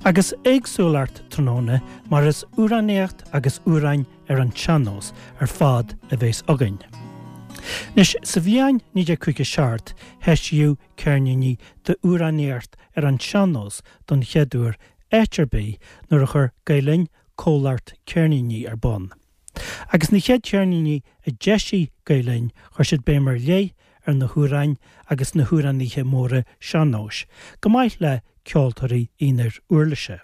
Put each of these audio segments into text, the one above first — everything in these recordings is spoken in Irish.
Agus éagsúlacht tráthnóna mar is amhránaíocht agus amhráin ar an tsean-nós ar fad a bhéas againn. Anois, sa bhliain 1957 heisíodh ceirníní d'amhránaíocht ar an tsean-nós don chéad uair áit ar bith nuair a chuir Gael Linn comhlacht ceirníní ar bun. Agus na chéad cheirníní a d'eisigh Gael Linn chuir siad béim ar leith ar na hamhráin agus na hamhránaithe móra sean-nóis, go maith le ceoltóirí aonair uirlise.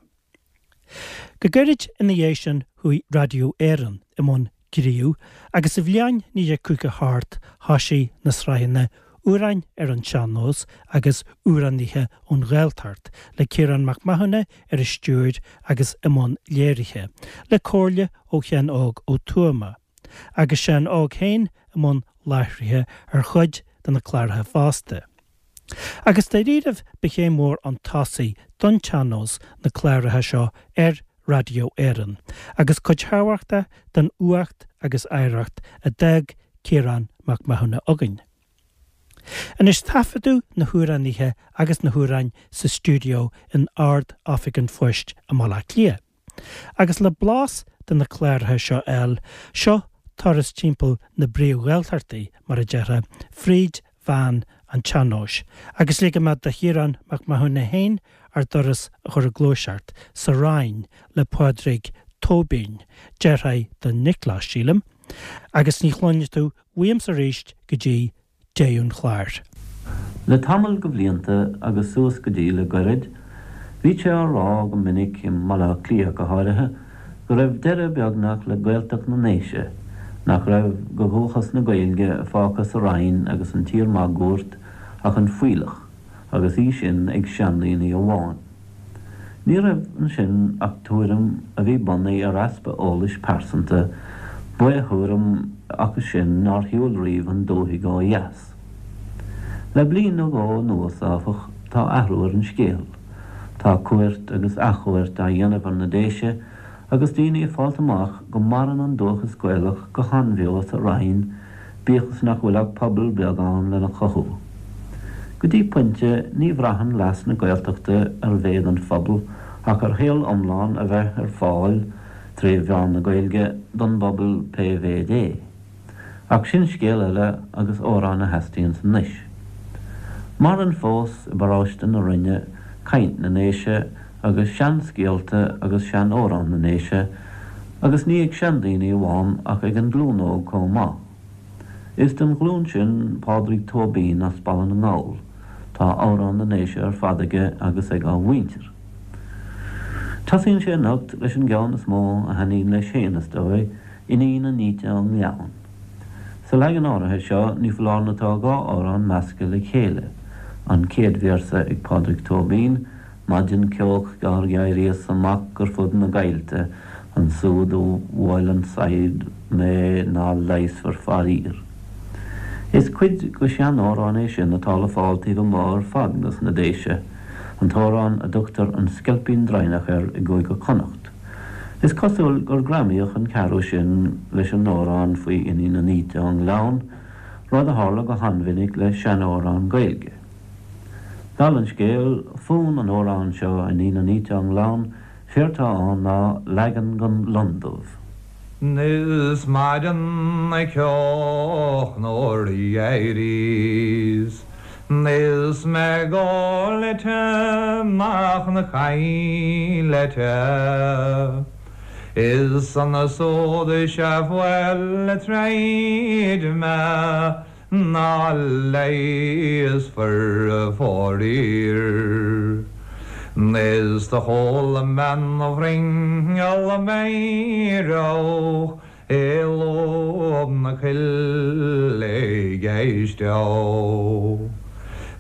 Go gairid ina dhiaidh sin chuaigh Raidió Éireann i mbun gnímh agus sa bhliain 1958 thoisigh na sraitheanna Amhráin ar an tSean-Nós agus Amhránaithe ón Ghaeltacht le Ciarán Mac Mathúna ar an stiúir agus i mbun léirithe, le comhairle ó Sheán Óg Ó Tuama, agus Seán Óg féin i mbun láithrithe ar chuid de na cláracha fosta. Agus dáiríribh ba chéim mhór chun tosaigh don tsean-nós na cláracha seo ar Raidió Éireann, agus cuid thábhachtach den uacht agus oidhreacht a d'fhág Ciarán Mac Mathúna againn. Anois taifeadadh na hamhránaithe agus na hamhráin sa stiúideo in Ard-Oifig an Phoist i mBaile Átha Cliath. Agus le blas de na cláracha seo a fháil, seo turas timpeall na bpríomh-Ghaeltachtaí, mar a déarfá, fríd mheán an tsean-nóis, agus ligfidh mé do Chiarán Mac Mathúna féin ár dturas a chur ag gluaiseacht, sa Rinn le Pádraig Tóibín, deartháir do Nioclás, sílim, agus ní chluinfidh tú uaimse arís go dtí deireadh an chláir. Le tamall de bhlianta, agus suas go dtí le goirid, bhí sé á rá go minic, i mBaile Átha Cliath go háirithe, go raibh deireadh beagnach le Gaeltacht na nDéise, nach raibh de dhúchas na Gaeilge fágtha sa Rinn agus an tír máguaird ach an fuílleach, agus í sin ag seandaoine amháin. Ní raibh ansin ach tuairim a bhí bunaithe ar easpa eolais pearsanta, baoth-thuairim acu sin nár shiúil riamh an dúthaigh ó dheas. Le bliain nó dhó anuas, áfach, tá athrú ar an scéal. Tá cuairt agus athchuairt á dhéanamh ar na Déise agus daoine ag fáilt amach go maireann an dúchas Gaelach go han-bheo sa Rinn, bíodh is nach bhfuil ach pobal beag ann lena chothú. Go dtí pointe, ní bhraitheann leas na Gaeltachta ar mhéad an phobail ach ar shaol iomlán a bheith ar fáil, tré mheán na Gaeilge, don bpobal pé mhéid é. Ach sin scéal eile agus amhrán a theastaíonns anois. Maireann fós i bparóiste na Rinne caint na nDéise agus seanscéalta agus seanamhráin na nDéise agus ní ag seandaoine amháin ach ag an nglúin óg chomh maith. Is den ghlúin sin Pádraig Tóibín as Baile na nGall. Tá amhráin na nDéise ar fad aige agus ag a mhuintir. Tosaíonn sé anocht leis an gceann is mó a thaitníonn leis féin, is dóigh, Iníon an Fhíte ón nGleann. Sa leagan áirithe seo, ní foláir nó tá dhá amhrán measctha le chéile, an chéad véarsa ag Pádraig Tóibín, Maidin ceoch gearr dh'éiríos amach ar fud na gcoillte, ansúd do bhuail an saighead mé ná leigheasfar faraor. Is cuid de sheanamhrán é sin atá le fáil taobh amuigh ar fad dos na Déise, an t-amhrán a dtugtar An Sceilpín Draighneach air i gCúige Chonnacht. Is cosúil gur greamaíodh an ceathrú sin leis an amhrán faoi Iníon an Fhíte ón nGleann, rud a tharla go han-mhinic le seanamhráin Gaeilge. Dála an scéil, fonn an amhráin seo, Iníon an Fhíte ón nGleann, séard tá ann ná leagan den Lon Dubh. Is maidin ceoch nuair a d'éiríos Is mé ag gabháil amach na coillte Is ansúd is ea bhuail tríd mé ná leigheasfar faraor. Is do chuala mé an ghrinneall meidhreach i lúb na coille ag éisteacht.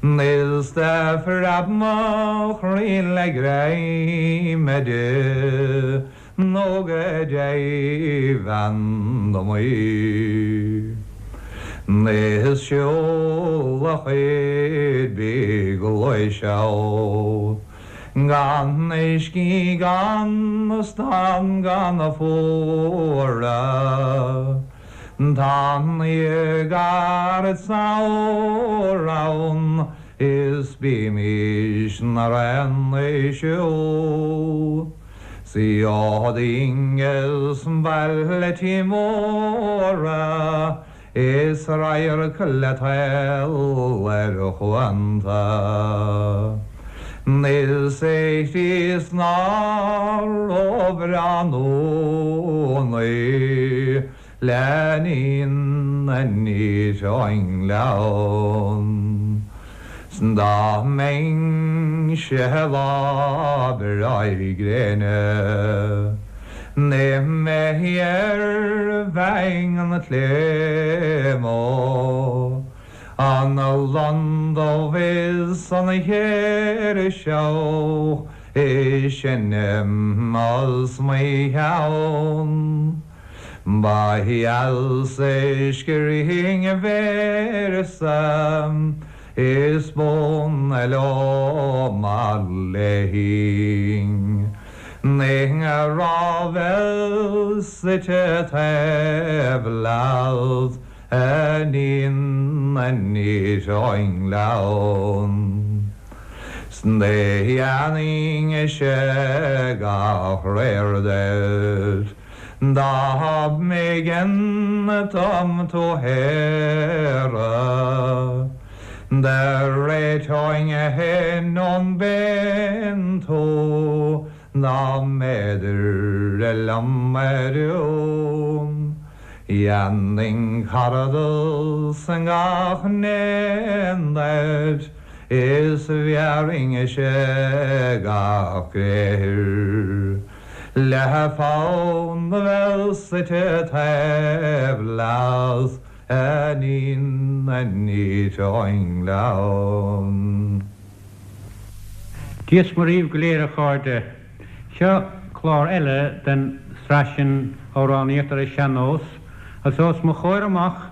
Is do phreab mo chroí le greim di. Nó go deimhin dom í. Is siúl a chuid bídh gluaiseacht gan scíth gan stad gan fuaradh. Tá an gairid samhradh ann. Is bímis 'nar aon Siod inges bailetí móra Is radharc le toil ar chuanta. Is é Críost nár róbhreá nónaí Le níon aniar ón ngleann. 'S dá mbeinnse lá breá gréine Ní mé ar bheinn an tléamó An lon dubh is an chéirseach Is seinm os mo chionn. Ba dheas é scrín véarsa is bun liom mar léinn. Ní raibh suite taobh leat a níon aniar ón ngleann. 'S dhéanfainnse gach réir duit. Dá mb'éigean dom tú shaoradh, Do réiteoinn fhéin ón bpéin tú Dá mb'fhéidir liom a rún. Dhéanfainn caradas ngach n-éan duit Is bhéarfainnse gach gréithir. Le fonn a bheith suite taobh leat a níon aniar ón ngleann. Dia 's Muire dhaoibh go léir a chairde. Seo clár eile den sraith sin Amhránaíocht ar an Sean-Nós agus os mo chomhair amach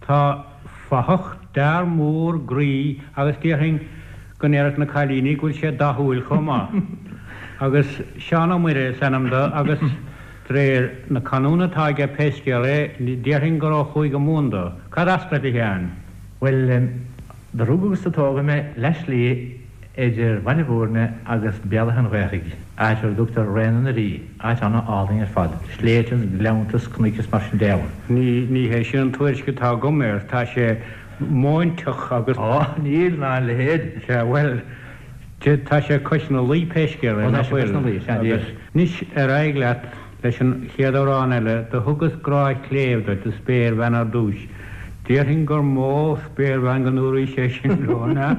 tá fathach d'fhear mór groí agus déarfainn go ndéarfadh na cailíní go bhfuil sé dathúil chomh maith. Agus Seán Ó Muire is ainm do agus de réir na canúna atá aige pé scéal é, déarfainn gur ó Chúige Mumhan do. Cad as duit, a Sheáin? Bhuel, do rugadh agus do tógadh mé leath slí idir Bhaile Bhúirne agus Béal Átha an Ghaorthaidh, áit ar a dtugtar Réanna na Rí, áit ana-álainn ar fad, sléibhte is gleannta is cnoic is mar sin de ann. Ní, ní hé sin an tuairisc atá agam air. Tá sé móinteach agus. Á, níl ná a leithéid. Sea, bhuel, tá sé cois na Laoi pé scéal é, Ó, tá nach sé cois bhfuil? na Laoi, sea, Agus anois ar aghaidh leat leis an chéad amhrán eile, Do thugas grá chléibh duit, a spéirbhean ar dtúis. Déarfainn gur mó spéirbhean go ndúraís é sin leo, an ea?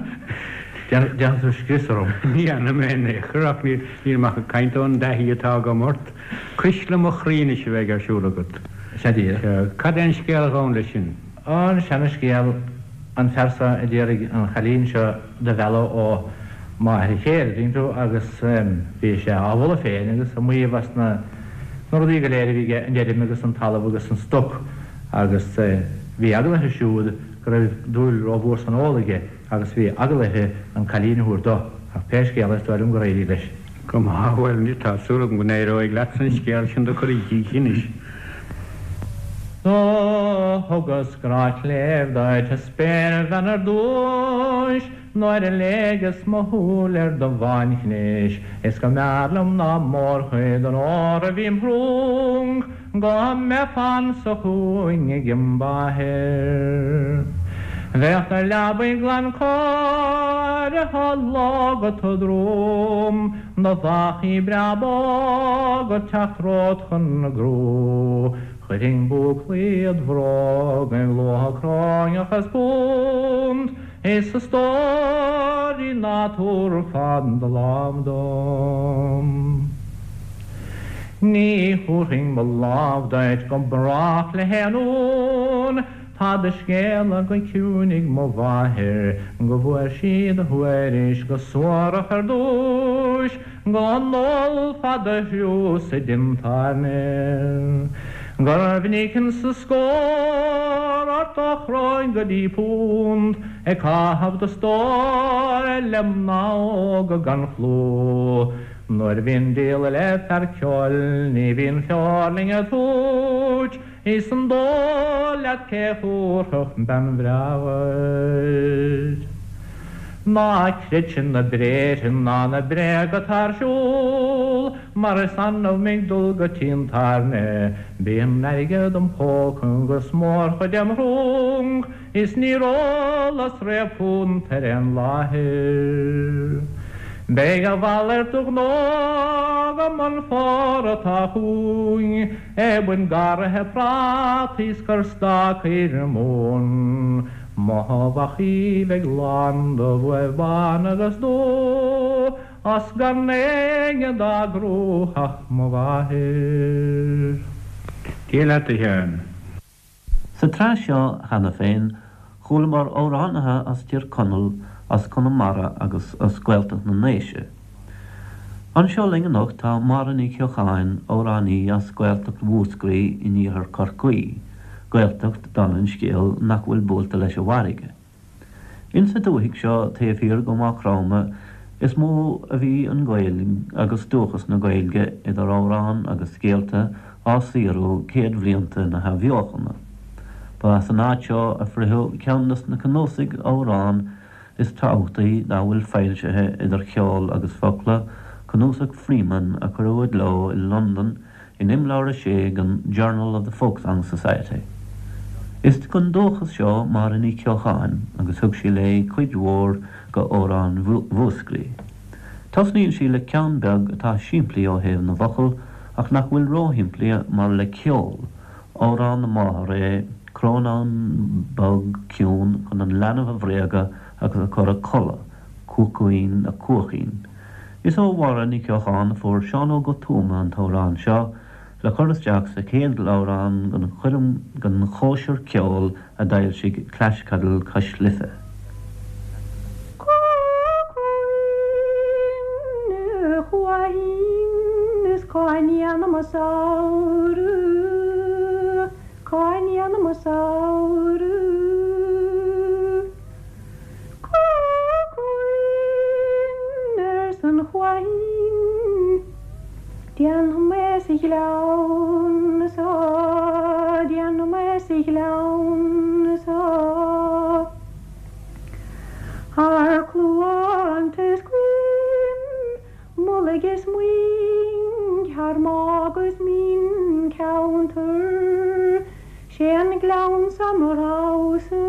Déanfaidh tú scrios orm. Ní dhéanfaidh mé in aon chor, ach nílim ach ag caint ón dtaithí atá agam ort. Cuisle mo chroí anois a bheidh ar siúl agat. Sea, díreach. Sea. Cad é an scéal a ghabhann leis sin? An seana-scéal, an fear seo a d'iarraidh an chailín seo do mhealladh ó mháthair a chéile, tuigeann tú, agus bhí sé á mholadh féin agus ag maíomh as na rudaí go léir a bhí aige, an fheirm agus an talamh agus an stoc, agus bhí eagla uirthi siúd go raibh dúil rómhór san ól aige agus bhí eagla uirthi an cailín a thabhairt dó, ach pé scéal é is dóigh liom gur éirigh leis. Go maith, bhuel, tá súil agam go n-éireoidh leatsa an scéal sin do chur i gcrích anois. Do thugas grá cléibh duit a spéirbhean ar dtúis Nuair a léigeas mo shúil ar do bhánchnis Is go mb'fhearr liom ná mórchuid an óir a bhí im thrúnc Go mbeifeá anso chugainn ag im mháthair. Bheadh do leabaidh glan cóirithe lógha do dhroim Do bhfachaí breá bog ag teacht romhat chun na gcrú. Chuirfinn búclaí id bhróga ag luach cróineach is punt, is a stóirín ná tabharfá do lámh dom. Ní thabharfainn mo lámh duit go brách le haon uain, tá do scéala go ciúin ag mo mháthair, go bhfuair sí do thuairisc go suarach ar dtúis, Go n-ólfá do thriúr sa díon tábhairne, Gur mhinic insa scór ort ó chróin go dtí punt, Ag caitheamh do stóir le mná óga gan chlú. Nuair a bhíonn díol le fear ceoil ní bhíonn feoirling ag tabhairt, Is an dóigh leat cé thabharfadh bean bhreá dhuit? Ná creid na bréithre ná na bréaga atá ar siúl, mar is annamh mé ag dul go tí an tábhairne. Bíonn airgead im phóca agus mórchuid im shrong, is níor ólas riamh punt ar aon láthair. Beidh a mhalairt de ghnó agam an fómhar atá chugainn, ag baint garraithe prátaí 's cur stácaí ar an móin. Mo bhachaí bheidh lán de bhuaibh bán agus dubh, A's gan éinne dá gcrúdh ach mo mháthair. Dia leat, a Sheáin. Sa tsraith seo cheana féin, chualamar amhránaithe as Tír Chonaill, as Conamara agus as Gaeltacht na nDéise. Anseo linn anocht tá Máire Ní Cheocháin, amhránaí as Gaeltacht Mhúscraí in iarthar Chorcaí, Gaeltacht, dála an scéil, nach bhfuil buailte leis an bhfarraige. Insa dúthaigh seo taobh thiar go Maigh Chromtha is mó a bhí an Ghaeilge agus dúchas na Gaeilge idir amhráin agus scéalta á saothrú céadbhlianta na hathbheochana. Ba as an áit seo a fritheadh ceann des na cnuasaigh amhrán is tábhachtaí dá bhfuil foilsithe idir cheol agus focla, cnuasach Freeman a cuireadh i gcló i Londain in Imleabhar 6 den Journal of the Folk-Song Society. Is den dúchas seo Máire Ní Cheocháin agus thug sí léi cuid mhór go amhráin Mhúscraí. Tosnaíonn sí le ceann beag atá simplí ó thaobh na bhfocal ach nach bhfuil róshimplí mar le ceol, Amhrán na máthar é Crónán bog ciúin chun an leanbh a bhréagadh agus a chur a codladh, Cuachaoin a Cuaichín. Is ó Mháire Ní Cheocháin a fuair Seán Óg Ó Tuama an t-amhrán seo le cur isteach sa chéad leabhrán den choirm den chóisir ceoil a d'fhoilsigh Clashcadle Cois Life. Cuachaoin a Chuaichín is cá ndéanaim mo shamhradh, cá ndéanaim mo shamhradh. Cuachaoin arsa an chuaichín, déanfaidh mé sa ghleann so, déanfaidh mé sa ghleann so. Thar cluanta is coim, mullaigh is muing, thar mágh is mín ceantar, 'sé an gleann so mo roghsa.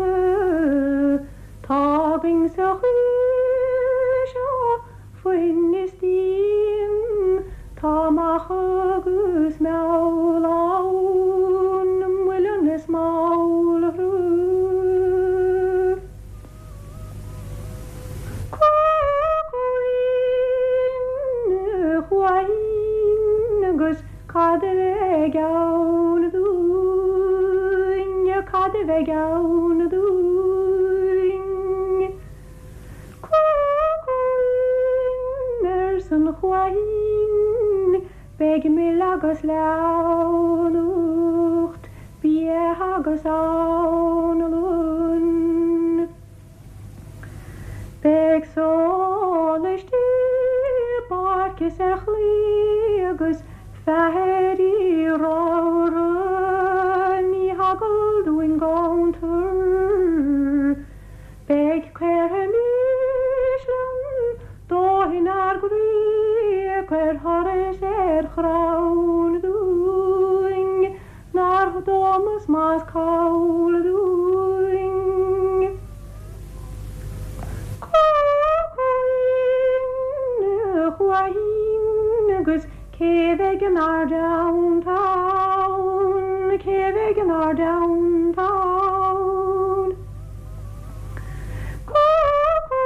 Tá againn sa choill seo foinn is díon, tá macha agus meall ann, muileann is malra. Cuachaoin a Chuaichín agus cad a bheidh ann dúinn, cad a bheidh ann dúinn? Cuachaoin arsa an chuaichín, beidh mil agus leamhnacht, bia agus anlann. Beidh sólaistí i bpáirc is ar chlaí agus feathairí ramhra, ní heagal dúinn ganntar. Beidh caortha mísle dóigh inár gcroí, cuir thuras ar chrann dúinn nár dómas más call dúinn. Cuachaoin a Chuaichín agus cé bheidh inár dteannta ann, cé bheidh inár dteannta ann?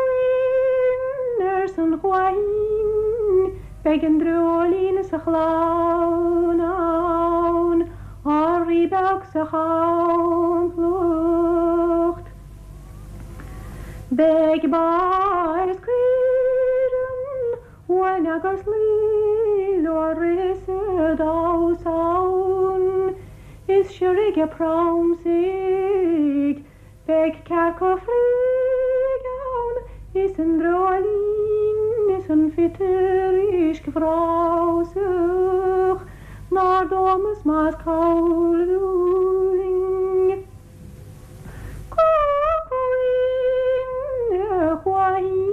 Cuachaoin arsa an chuaichín, beidh an dreoilín is a chlann ann, ár rí beag sa champlacht. Beidh ba is caoire, uain agus lao leo ag rith is ag damhsa ann, is siorraigh ag pramsaigh. Beidh cearca fraoigh ann is an dreoilín is an phiotair uiscebhreabhsach nár dómas más call dúinn. Cuachaoin a Chuaichín.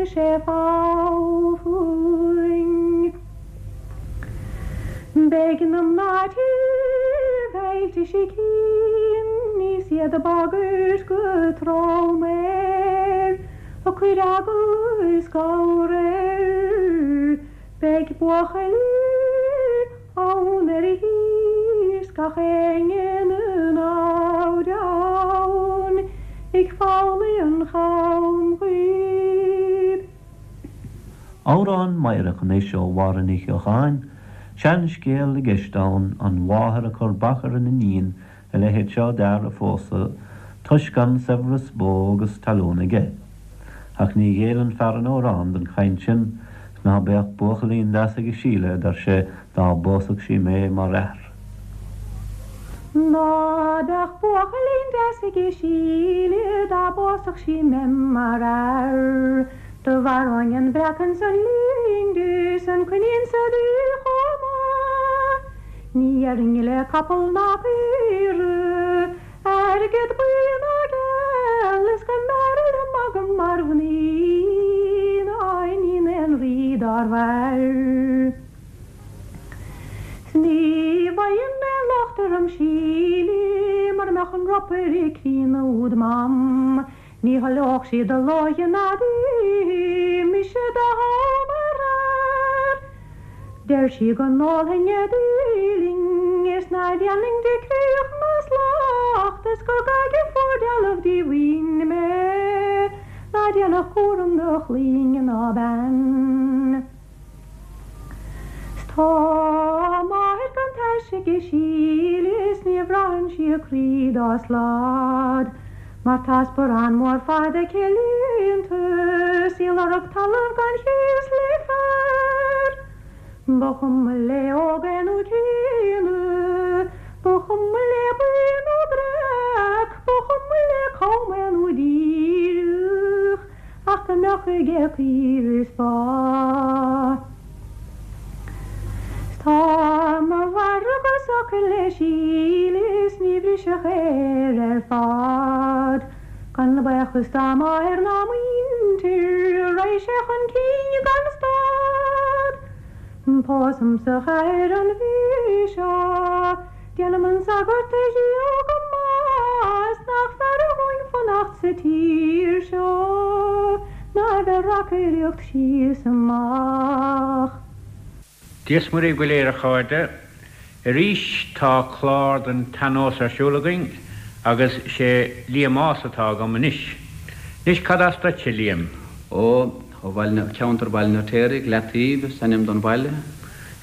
chuir sé fogha fúinn. Beidh na mná tí bhfeilte sicín is iad ag bagairt go trom air, ag cur eagla is gabhar air. Beidh buachaillí ann ar a thír 's gach éinne 'na namhaid ann ag foghlaí an cham dhuibh. Amhrán meidhreach anois ó Mháire Ní Cheocháin, seanscéal i gceist ann, an mháthair ag cur bac ar an iníon a leithéid seo d'fhear a phósadh toisc gan saibhreas bó agus talún aige. Ach ní ghéilleann fear an amhráin don chaint sin, 's ná beadh buachaillín deas aige Síle, a deir sé, dá bpósfadh sí mé mar fhear. Ná beadh buachaillín deas aige Síle dá bpósfadh sí mé mar fhear. Do mharóinn an breacan 's an lindis 's an coinín sa dtuí chomh maith. Ní dhéarfainn le capall ná caora, airgead buí ná geal, is go mb'fhearr liom agam mar mhnaoi ná iníon aon rí dár mhair. 'S ní bhfaighinn aon locht orm Síle mura mbeadh an ropaire críonna úd ma'm. Ní thoileodh sí do lóighe ná d'oíche mise do thoghadh mar fhear. Deir sí go n-ólfainn a díling is ná déanfainn di creach ná slacht is gur gaige fuar dealbh díomhaoin mé ná déanfadh cúram do chlainne ná bean. 'S tá máthair gan taise aige Síle is ní bhraitheann sí a croí dá slad mar tá sparán mór fada aici líonta 's í ag lorg talamh gan chíos le fear. Ba chuma léi óg é nó críonna, ba chuma léi buí nó breac, ba chuma léi cam é nó díreach. Ach go mbeadh aige caoire is ba. 'S tá mo mhargadh socair le Síle is ní bhrisfeadh air ar fad. Gan baochas dá máthair ná muintir, raghaidh sé chun cinn gan stad. Pósaim sa chathair an mhí seo. Déanam an sagart a dhíol go maith is nach fearra dhúinn fanacht sa tír seo ná a bheith ag reacaireacht síos amach. Dia 's Muire dhaoibh go léir a chairde. Arís tá clár den tsean-nós ar siúl againn agus sé Liam Ághas atá agam anois. Anois cad as duitse, Liam? Ó, Ó bhaile na, ceantar Bhaile an Fheirtéaraigh, Leataoibh is ainm don bhaile.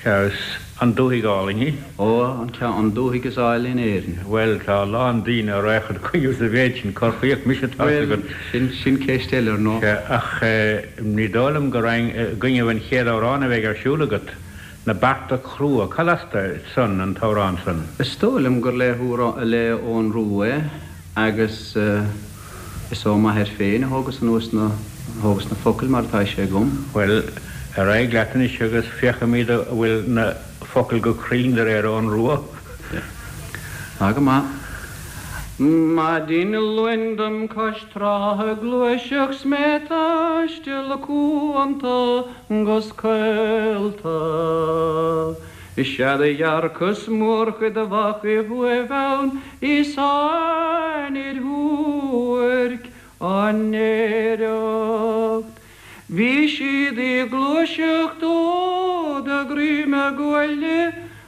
Sea, is an dúthaigh álainn í. Ó, an ceann, an dúthaigh is áille in Éirinn. Bhuel, tá a lán daoine a raghadh id choinne sa mhéid sin, corrchaíoch mise tá's Bhuel, agat. sin, sin ceist eile, ar ndóigh. Sea, ach ní dóigh liom go raghainn i gcoinnibh an chéad amhráin a bheidh ar siúl agat, Na Bearta Crua. Cad as duit san, an t-amhrán san? Is dóigh liom gur le, le Eoghan Rua é agus. Is ó m'athair féin a thógas anuas na, thógas na focail mar atá sé agam. Bhuel, ar aghaidh leat anois agus féachfaimid an bhfuil na focail go cruinn de réir Eoghan Rua. Tá go maith. Maidin Luain dom cois trá ag gluaiseacht 's mé ag taisteal cuanta 'gus coillta. Is ea do dhearcas mórchuid de mhachaibh uaimh ann is aithnid shuairc á néireacht. Bhí siad ag gluaiseacht ó do dhroim a gcuaille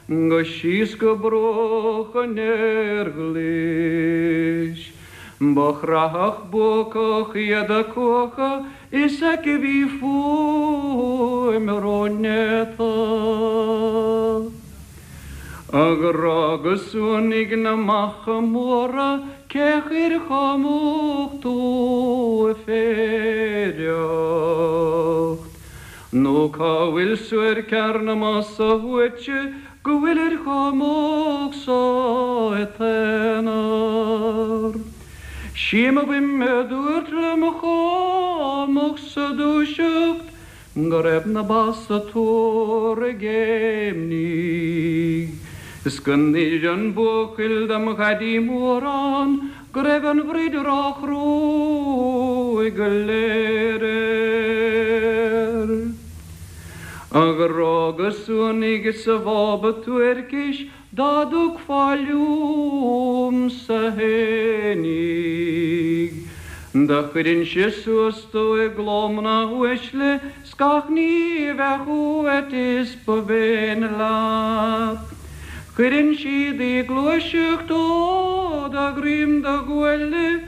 go síos go bruach an Erglais. Ba chrathach buacach iad a cuacha is aici bhí fuaim rónéata. A ghrá go suanaigh na macha móra cé chuir chamach tú ag féireacht? Nó cá bhfuil suairc fhear na mba shuaite go bhfuilir chomh moch so i t-aonar? Sí mo bhuime a dúirt liom chomh moch sa dúiseacht go raibh na ba sa tóir ag géimnigh, is go n-inis an buachaill dom dhaidí mór ann go raibh an bhroid róchruaidh go léir air. A ghrá go suanaigh is a bhába toirchis dá dtugfá liomsa fhéinig. Do chuirinnse suas tú i gcló mná uaisle 's gach ní bheadh uait is ba mhéin leat. Cuireann siad í gluaiseacht ó do dhroim do ghuaille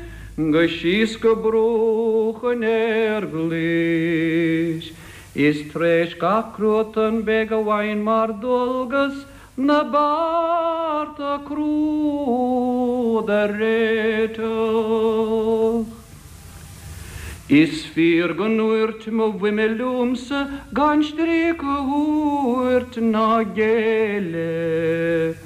go síos go bruach an fhéir ghlais. Is tar éis gach cruatan beidh a bhfaighinn mar dualgas na bearta crua do réiteach. Is fíor go ndúirt mo bhuime liomsa gan stríoc a thabhairt ná géilleadh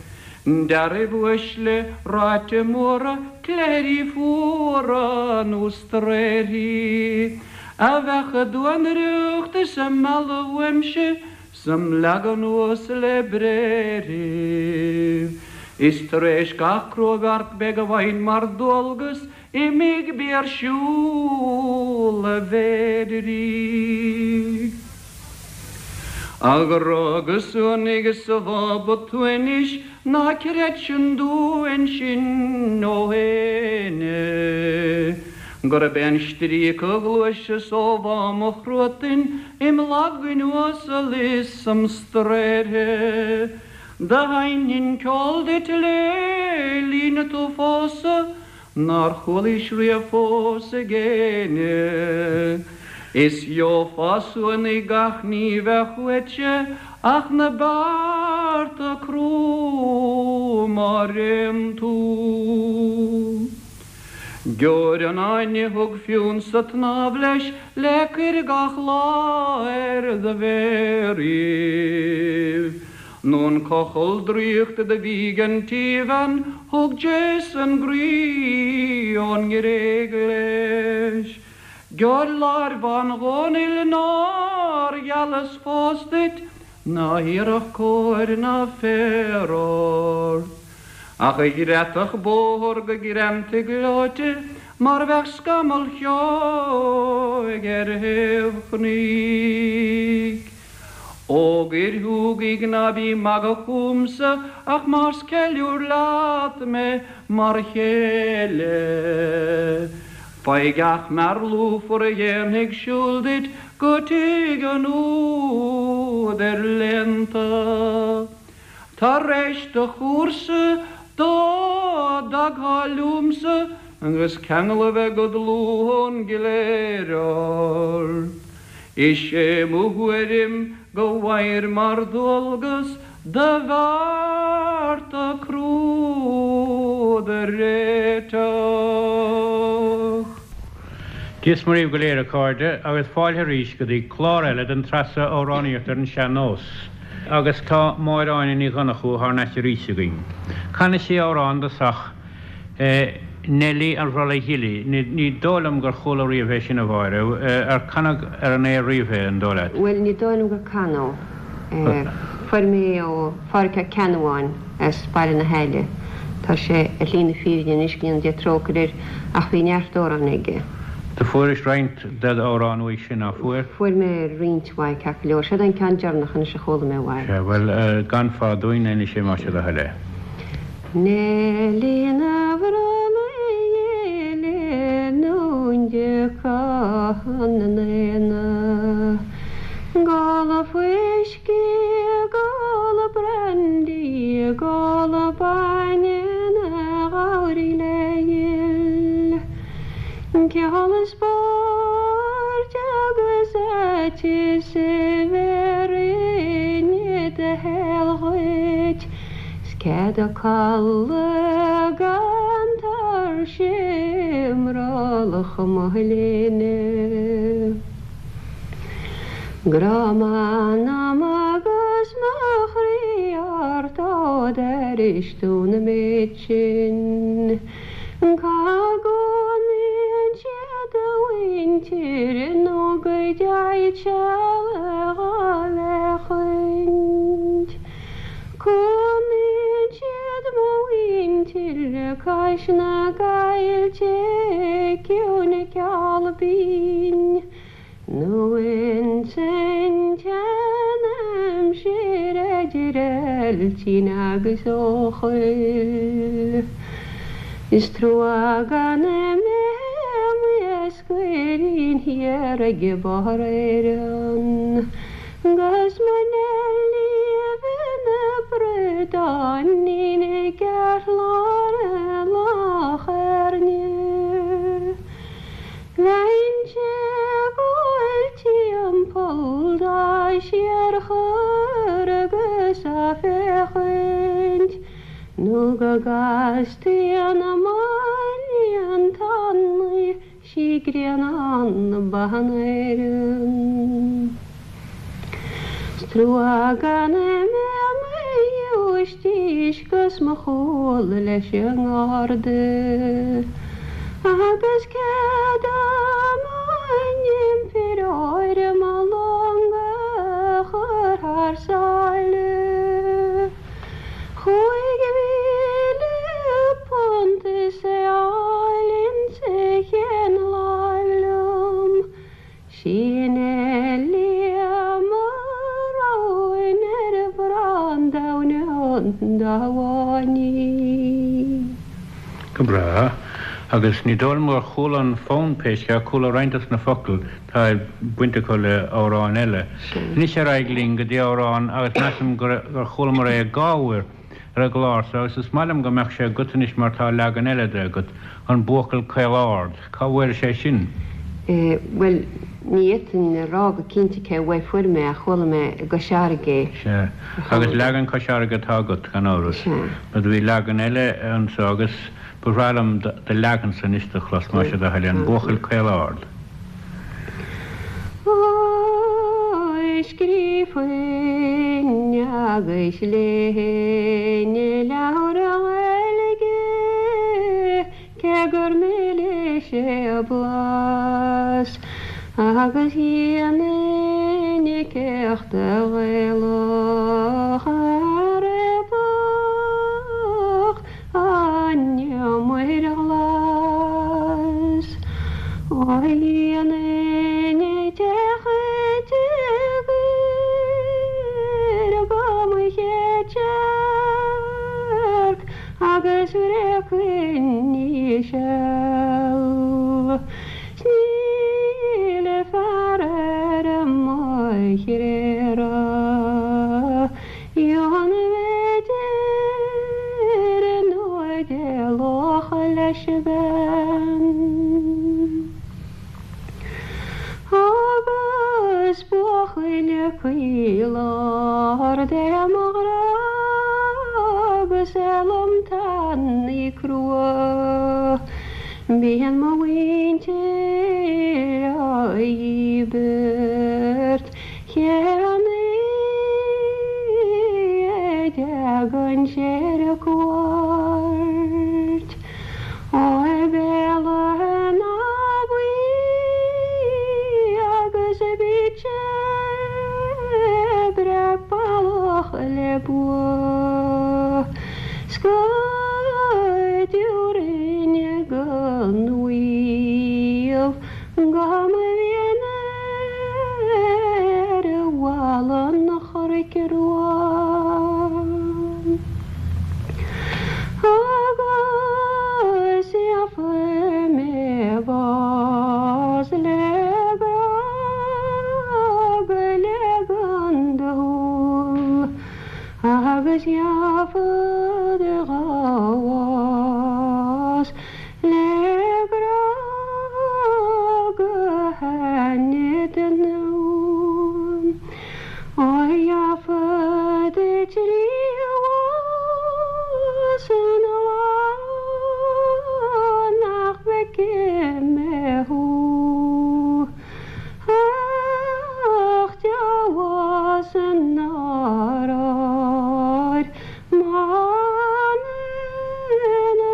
d'fhearaibh uaisle ráite móra, cléirí fuara nó straothraí a bheadh a duanaireacht is a mealladh uaimse 's im leagadh anuas le bréithre. Is tar éis gach cruabheart beidh a bhfaighinn mar dualgas imigh bí ar siúl a mhéid rí. A ghrá go suanaigh is a bhába tú anois ná creid sin dúinn sin ó éinne gurb é an stríoc a ghluaiseas ó bhá mo chruatain im Lagain uasal is im straoithe. Do sheinninn ceol duit le linn tú phósadh nár chualaís riamh fós ag éinne. Is gheofá suanaigh gach ní bheadh uaitse ach na bearta crua má réann tú. Geobhair an fháinne thug Fionn sa tsnámh leis le cuir gach lá ar do mhéaraibh. Nó an cochall draíochta do bhí ag an tsíbhean thug Jason groí ón nGréig leis. Geobhair láir bhán Dhónaill nár ghealas fós duit ná hiarrfadh cóir ná féar ort. Ach a ghreadfadh bóthar go greanta gleoite mar bheadh scamall cheoigh ar thaobh chnoic. Fhógair Shúgaigh ná bí magadh chúmsa ach más ceiliúr leat mé mar chéile. Faigh gach mear lúfar a dhéanfaidh siúl duit go tigh an údair léannta. Tar éis do chúrsa dá dtagthá liomsa agus ceangal a bheith go dlúth ón gcléir ort. Is é mo thuairim go bhfaighir mar dhualgas do bhearta crua do réiteach. Dia is Muire dhaoibh go léir a chairde agus fáilte arís go dtí clár eile den tsraith seo Amhránaíocht ar an Sean-Nós. Agus tá Máire Áine Ní Dhonnchú thar n-ais arís againn. Canfaidh sí amhrán i dtosach, Neilí an Bhrollaigh Ghilí. Ní dóigh liom gur chuala riamh é sin, a Mháire. Ar canadh ar an aer riamh é, an dóigh leat? Bhuel, ní dóigh liom gur canadh é. Fuair mé é ó Phádhraic Ó Ceannabháin as Baile na hAille. Tá sé ar shlí na fírinne anois, go ndéana Dia trócaire air, ach bhí neart amhrán aige. Do fuairis roinnt d'amhráin uaidh sin, ná fuair? Fuair mé roinnt mhaith, ceart go leor. Seod é an ceann deireanach anois a chuala mé uaidh. Sea, bhuel, canfá dúinn anois é más é do thoil é. Neilí na Brollaigh Gile nó de Cathain na nAonach. Ag ól fuiscí, ag ól brandy, ag ól bainne 'na ghabhraí le Ceol is spóirt agus aiteas a bheir inne do shaol dhuit 's cead a codladh gan tuirse i mbrollach mo shlinne. Grá m'anam agus mo chroí ort ó d'airigh tú na méid sin. Cá gcónaíonn siad a mhuintir nó go dteighead seal a dh'fhéachaint. Cónaíonn siad mo mhuintir cois na gcoillte ciúine ceol binn nó ins an tsean. Bheailtín agus Eochaill. Is trua gan mé i m'iascairín thiar ag barr Éireann 'gus mo Neilí a bheith 'na bradáinín i gceartlár Loch Airne. Bheinnse ag gabháil timpeall dá síorchur agus á féachaint nó go gcastaí na máinlian tanaí sí Grianán Ban Éireann. 'S trua gan mé i mo ghiúistís 'gus mo chúl leis an ngarda agus cead dom an impireoir mo long a chur thar sáile. £5,000 is é a fháil insa chéad láimh liom. Sí Neilí mo roghain ar bharr an domhain dá bháin í. Go breá. Agus ní dóigh liom gur chuala an fonn pé scéal, chuala roinnt dos na focail, tá baint acu le amhráin eile. Anois ar aghaidh linn go dtí amhrán agus measaim gur chualamar é dhá uair. ar an gclár so agus is maith liom go mbeadh sé agat anois mar tá leagan eile de agat, An Buachaill Caol Ard. Cá bhfuairis é sin? Bhuel, ní fhéadfainn a rá go cinnte cé uaidh fuair mé ach chuala mé i gCois Fharraige é. Sea. Agus leagan Cois Fharraige atá agat, gan amhras. Sea. Mar do bhí leagan eile anso agus ba bhreá liom do leagansa anois do chlos, más é do thoil é, An Buachaill Caol Ard. Ói scríobfainn agus léifinn leabhar Gaeilge cé gur milis é a blas agus dhéanfainn céachta Ghaelach a réabadh An Muir Ghlas ó dhéanfainn deich dtír go mo chéad searc agus bhreacfainn í seal. 'S níl fear ar mo thréada. Dheonfaidh deir nó d'éalódh leis an bhean. Agus buachaill caol ard é mo ghrá agus é lom tanaí crua. Bíonn mo mhuintir á dhíbirt. Cén a dtagann sé ar cuairt ó Bhéal Átha na Buí agus bíonn sé breá ballach le bua 's go dtabharfainn go n-uaimh Go mba mhian ar bhalla an Chnoic Rua agus gheobhaidh mé bás le grá go leagan do shúl agus gheobhad dhá bhás Le grá go hainne den nua. Ó gheobhad bás an lá nach bhfeicfidh mé thú. Ach deabhas nár oir M'anam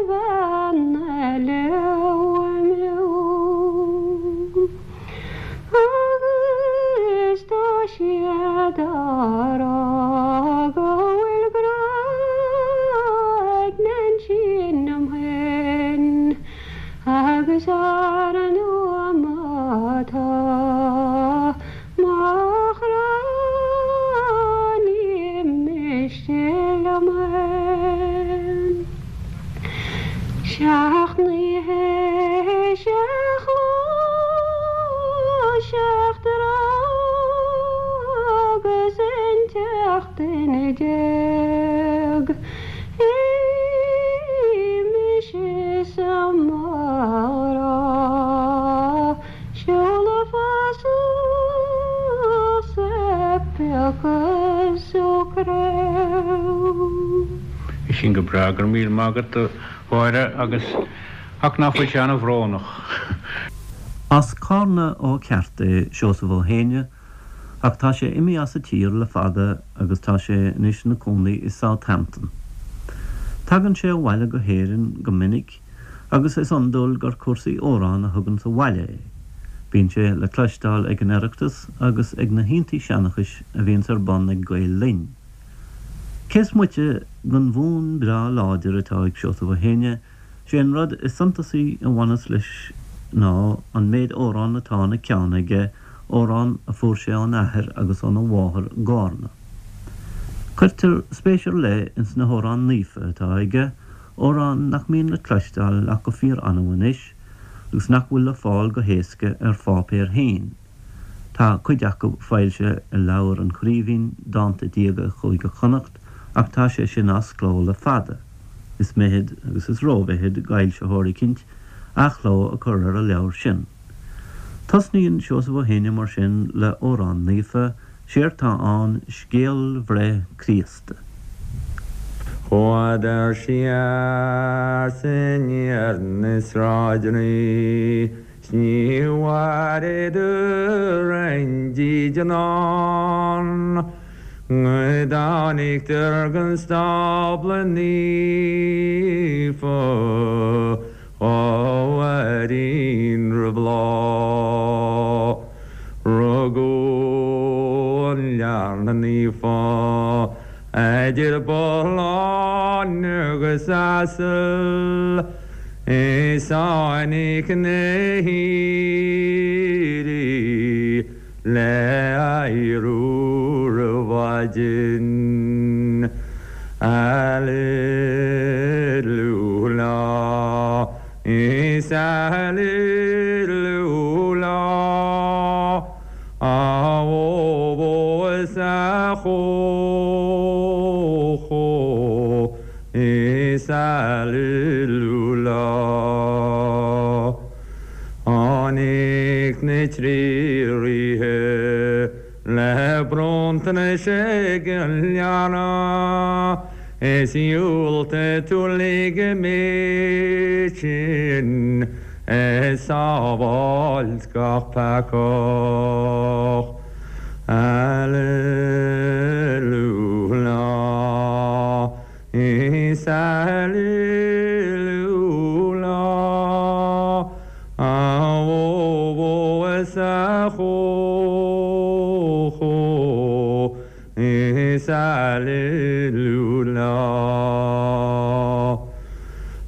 bhean eile uaim liom. 17 duine. Mise sa mara seoladh fasach sa bpeaca socraibh. Sin go breá, go raibh míle maith agat a Mháire agus ach ná fuil sé an-bhrónach. As Cárna ó cheart é Seosamh Ó hÉinne ach tá sé imithe as an tír le fada agus tá sé anois ina cónaí i Southampton. Tagann sé abhaile go hÉirinn go minic agus is iondúil gur cúrsaí amhrán a thuganns abhaile é. Bíonn sé le cloisteáil ag an Oireachtas agus ag na hoícheantaí seanchais a bhíonns ar bun ag Gael Linn. Cés moite den bhfonn breá láidir atá ag Seosamh Ó hÉinne, sé an rud is suntasaí a bhaineas leis ná an méid amhrán atá ina cheann aige, amhráin a fuair sé óna athair agus óna mháthair i gCárna. Cuirtear spéis ar leith ins na hamhráin naofa atá aige, amhráin nach mbíonn le cloisteáil ach go fíor-annamh anois agus nach bhfuil le fáil go héasca ar pháipéar féin. Tá cuid acu foilsithe i leabhar an Chraoibhín, Dánta Diaga Chúige Chonnacht, ach tá sé sin as cló le fada. Is mithid, agus is rómhithid, d'fhoilsitheoir eicínt athchló a chur ar an leabhar sin. Tosnaíonn Seosamh Ó hÉinne mar sin le amhrán naofa, séard tá ann Scéal Bhreith Críosta. Chuadar siar 's aniar na sráideanna 's ní bhfuaireadar aon dídean ann Go dtáinigdar gon stábla naofa Dhá uairín roimh lá Rugadh an Leanbh Naofa Idir bothlán agus asal Is tháinig na haoirí le adhradh roimh mhaidin. Alleluia, is Alleluia. A bhó is a chó is Alleluia. Tháinig na trí ríthe le bronntanais ag an leanbh is dhiúltaigh tú lig an méid sin ag sábháilt gach peacach. Alleluia, is Alleluia, a bhó is a chó Is Alleluia.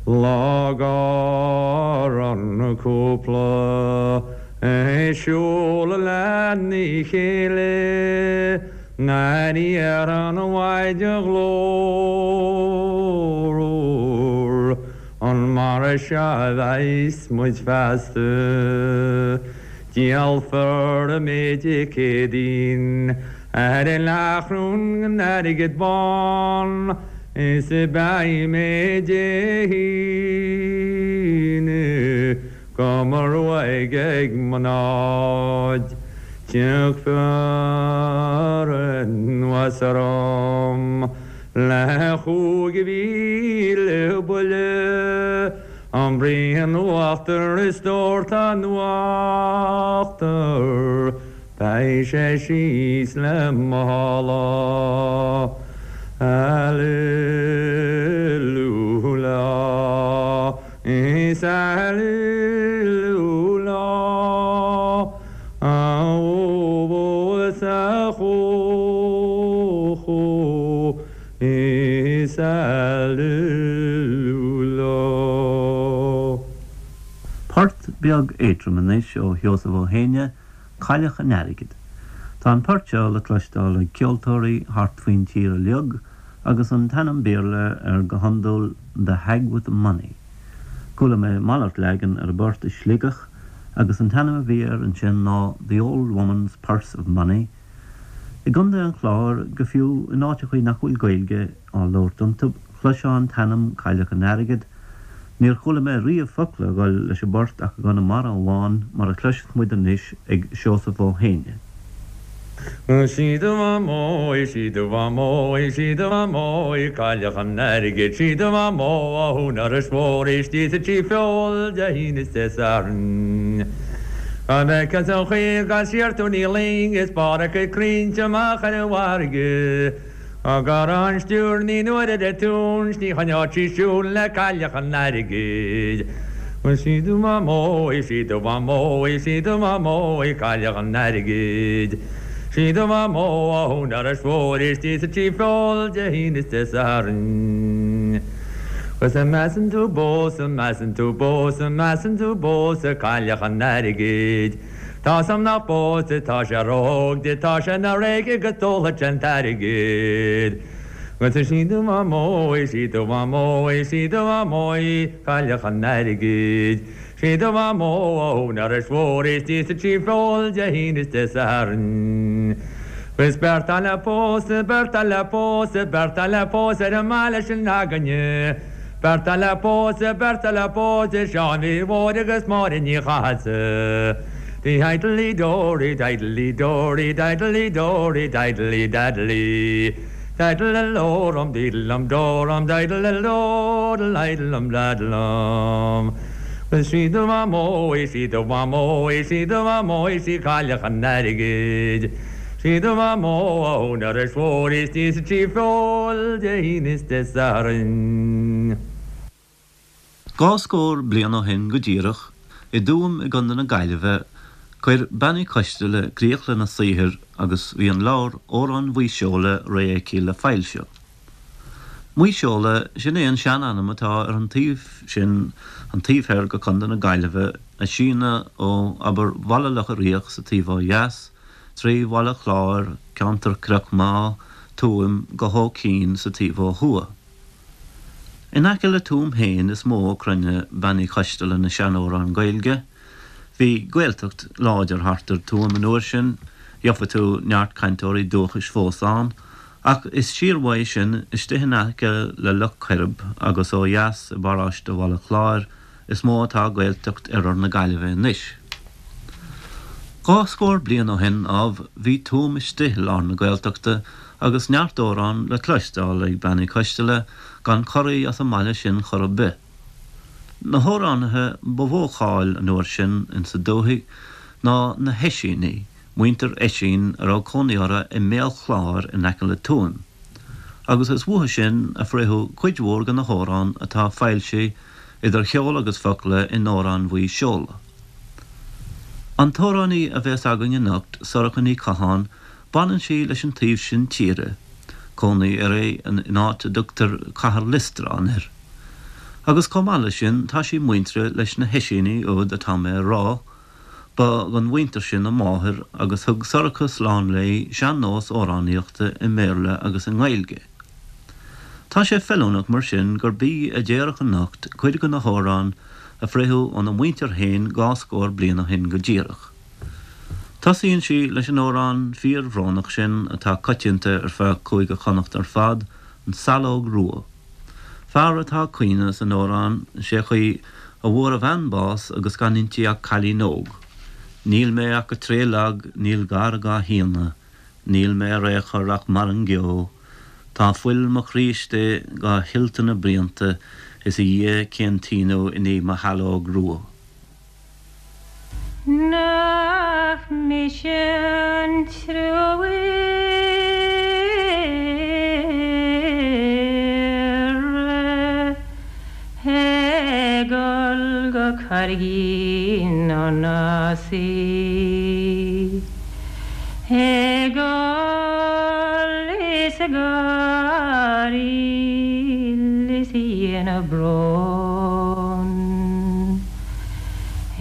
Lá go raibh an cúpla ag siúl lena chéile nuair iarr an Mhaighdean Ghlórmhar An mar seo a bheas muid feasta? Díolfar an méid Dé Céadaoin ar an leathchróin den airgead bán is beidh mé Dé hAoine do mo ruaig ag mo namhaid. Tiocfar anuas orm le 5,000 buille An braon uachtair is dórtadh an uachtair, beidh sé síos le mála. Alleluia, is Alleluia, a bhó is a chó, Is Alleluia. Port beag éadrom anois ó Sheosamh Ó hÉinne, Cailleach an Airgid. Tá an port seo le cloisteáil ag ceoltóirí thart faoin tír uilig agus an t-ainm Béarla air go hiondúil The Hag with the Money. Chuala mé malairt leagan ar an bport i Sligeach agus an t-ainm a bhí air ansin ná The Old Woman's Purse of Money. I gContae an Chláir, go fiú in áiteachaí nach bhfuil Gaeilge á labhairt iontu, chloisfeá an t-ainm Cailleach an Airgid. Níor chuala mé riamh focla a dhul leis an bport ach i gConamara amháin, mar a chloisfeas muid anois ag Seosamh Ó hÉinne. Sí do mhamó í, sí do mhamó í, sí do mhamó í, Cailleach an Airgid, sí do mhamó ó thún Iorrais Mhóir istigh sa Tí Feoil Dé hAoine is Dé Sathairn. Dá bhfeicfeá an chaoi a gcaith sí ar Tony Ling is barr a cuid crainnte amach ar an bhfarraige. Dá gcarrthá an stiúir naoi n-uaire de túin 's ní choinneodh sí siúl le Cailleach an Airgid. Sí do mhamó í, sí do mhamó í, sí do mhamó í, Cailleach an Airgid. Sí do mhamó ó thún Iorrais Mhóir istigh sa Tí Feoil Dé hAoine is Dé Sathairn. 'Gus an measann tú bpósadh, measann tú bpósadh, measann tú bpósadh Cailleach an Airgid. Tá's a'm nach bpósfaidh, tá sé ró-óg di, tá sé 'na réice agus d'ólfadh sé an t-airgead. 'Gus sí do mhamó í, sí do mhamó í, sí do mhamó í, Cailleach an Airgid. Sí do mhamó ó Thún Iorrais Mhóir istigh sa Tí Feoil Dé hAoine is Dé Sathairn. 'Gus beirt atá le pósadh, beirt atá le pósadh, beirt atá le pósadh ar an mbaile sin againne. Beirt atá le pósadh, beirt atá le pósadh, Seán Mhichíl Mhóir agus Máire Ní Chathasaigh. Diddley dory, diddley dory, diddley dory, diddley daddley. Diddle lorum, diddlum dorum, diddle doodle, diddlum daddlum. 'Gus sí do mhamó í, sí do mhamó í, sí do mhamó í, sí Cailleach an Airgid. Sí do mhamó ó Thún Iorrais Mhóir istigh sa Tí Feoil Dé hAoine is Dé Sathairn. Dhá scór bliain ó shin go díreach, i dTuaim i gContae na Gaillimhe, chuir Bean Uí Choisteala críoch lena saothar agus bhí an leabhar Amhráin Mhaigh Seola réidh aici le foilsiú. Maigh Seola, sin é an sean-ainm atá ar an taobh sin, an taobh thoir de Chontae na Gaillimhe, a síneadh ó, abair, Bhaile Locha Riach sa taobh ó dheas, trí Bhaile Chláir, ceantar Chnoc Meá, Tuaim, go hÓ Cinn sa taobh ó thuaidh. In aice le Tuaim féin is mó a cruinneadh Bean Uí Choisteala na seanamhráin Gaeilge. Bhí Gaeltacht láidir thart ar Tuaim an uair sin, gheofa tú neart cainteoirí dúchais fós ann, Ach is siar uaidh sin, istigh in aice le Loch Coirib agus ó dheas i bparóiste Bhaile Chláir is mó atá Gaeltacht oirthear na Gaillimhe anois. Dhá scór bliain ó shin, ámh, bhí Tuaim istigh i lár na Gaeltachta agus neart amhrán le cloisteáil ag Bean Uí Choisteala gan corraí as an mbaile sin chor ar bith. Na hamhránaithe ba mhó cáil an uair sin insa dúthaigh ná na hOisínigh, muintir Oisín a raibh cónaí orthu i mBéal Chláir in aice le Tuaim, agus is uathu sin a frítheadh cuid mhór de na hamhráin atá foilsithe idir cheol agus focla in Amhráin Mhaigh Seola. An t-amhránaí a bhéas againn anocht, Sorcha Ní Chatháin, baineann sí leis an taobh sin tíre, cónaí uirthi in áit a dtugtar Cathair Loistreáin air. Agus chomh maith leis sin tá sí muinteartha leis na hOisínigh úd atá mé a rá, Ba den mhuintir sin a máthair agus thug Sorcha slán léi sean-nós amhránaíochta i mBéarla agus i nGaeilge. Tá sé feiliúnach mar sin gurb í a déarfadh anocht cuid de na hamhráin a frítheadh óna muintir féin dhá scór bliain ó shin go díreach. Tosaíonn sí leis an amhrán fíor-bhrónach sin atá coitianta ar feadh Chúige Chonnacht ar fad, An tSaileog Rua. Fear atá ag caoineadh san amhrán, sé chaoi a bhfuair a bhean bás agus gan inti ach cailín óg. Níl mé ach go tréith lag, níl gar dhá shíneadh, níl mé ar aon chor ach mar an gceo, tá fuil mo chroí istigh dhá shilt ina bruíonta, is a Dhia cén t-ionadh i ndiaidh mo shaileog rua. Nach mise an truailléire ag dul go Carraigín na nAsaí Ag gol is ag gáiríl is a dhéanamh brón.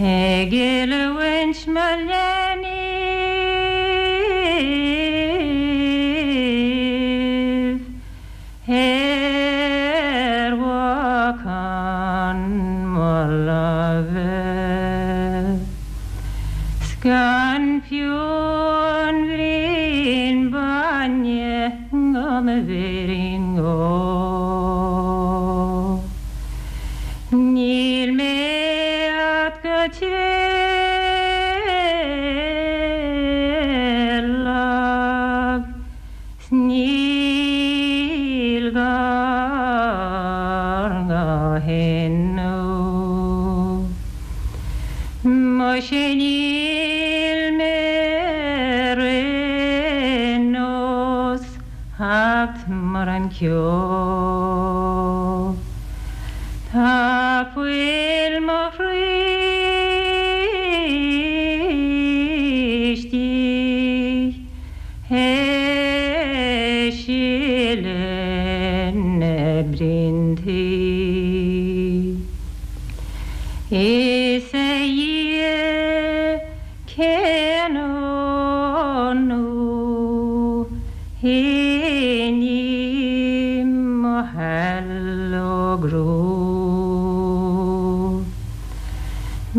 Ag oiliúint mo leanbh ar bhacán mo láimhe 's gan fiú an bhraon bainne. bainne go mo bhéirín óg. Níl mé a'd go tréalach 's níl gar go hinniu. Muise níl mé ar aon nós acht mar an ceo. Tá fuil mo chroí istigh ag sileadh na bpriontaí. Is a Dhia cén ionú i ndiaidh mo shaileog rua.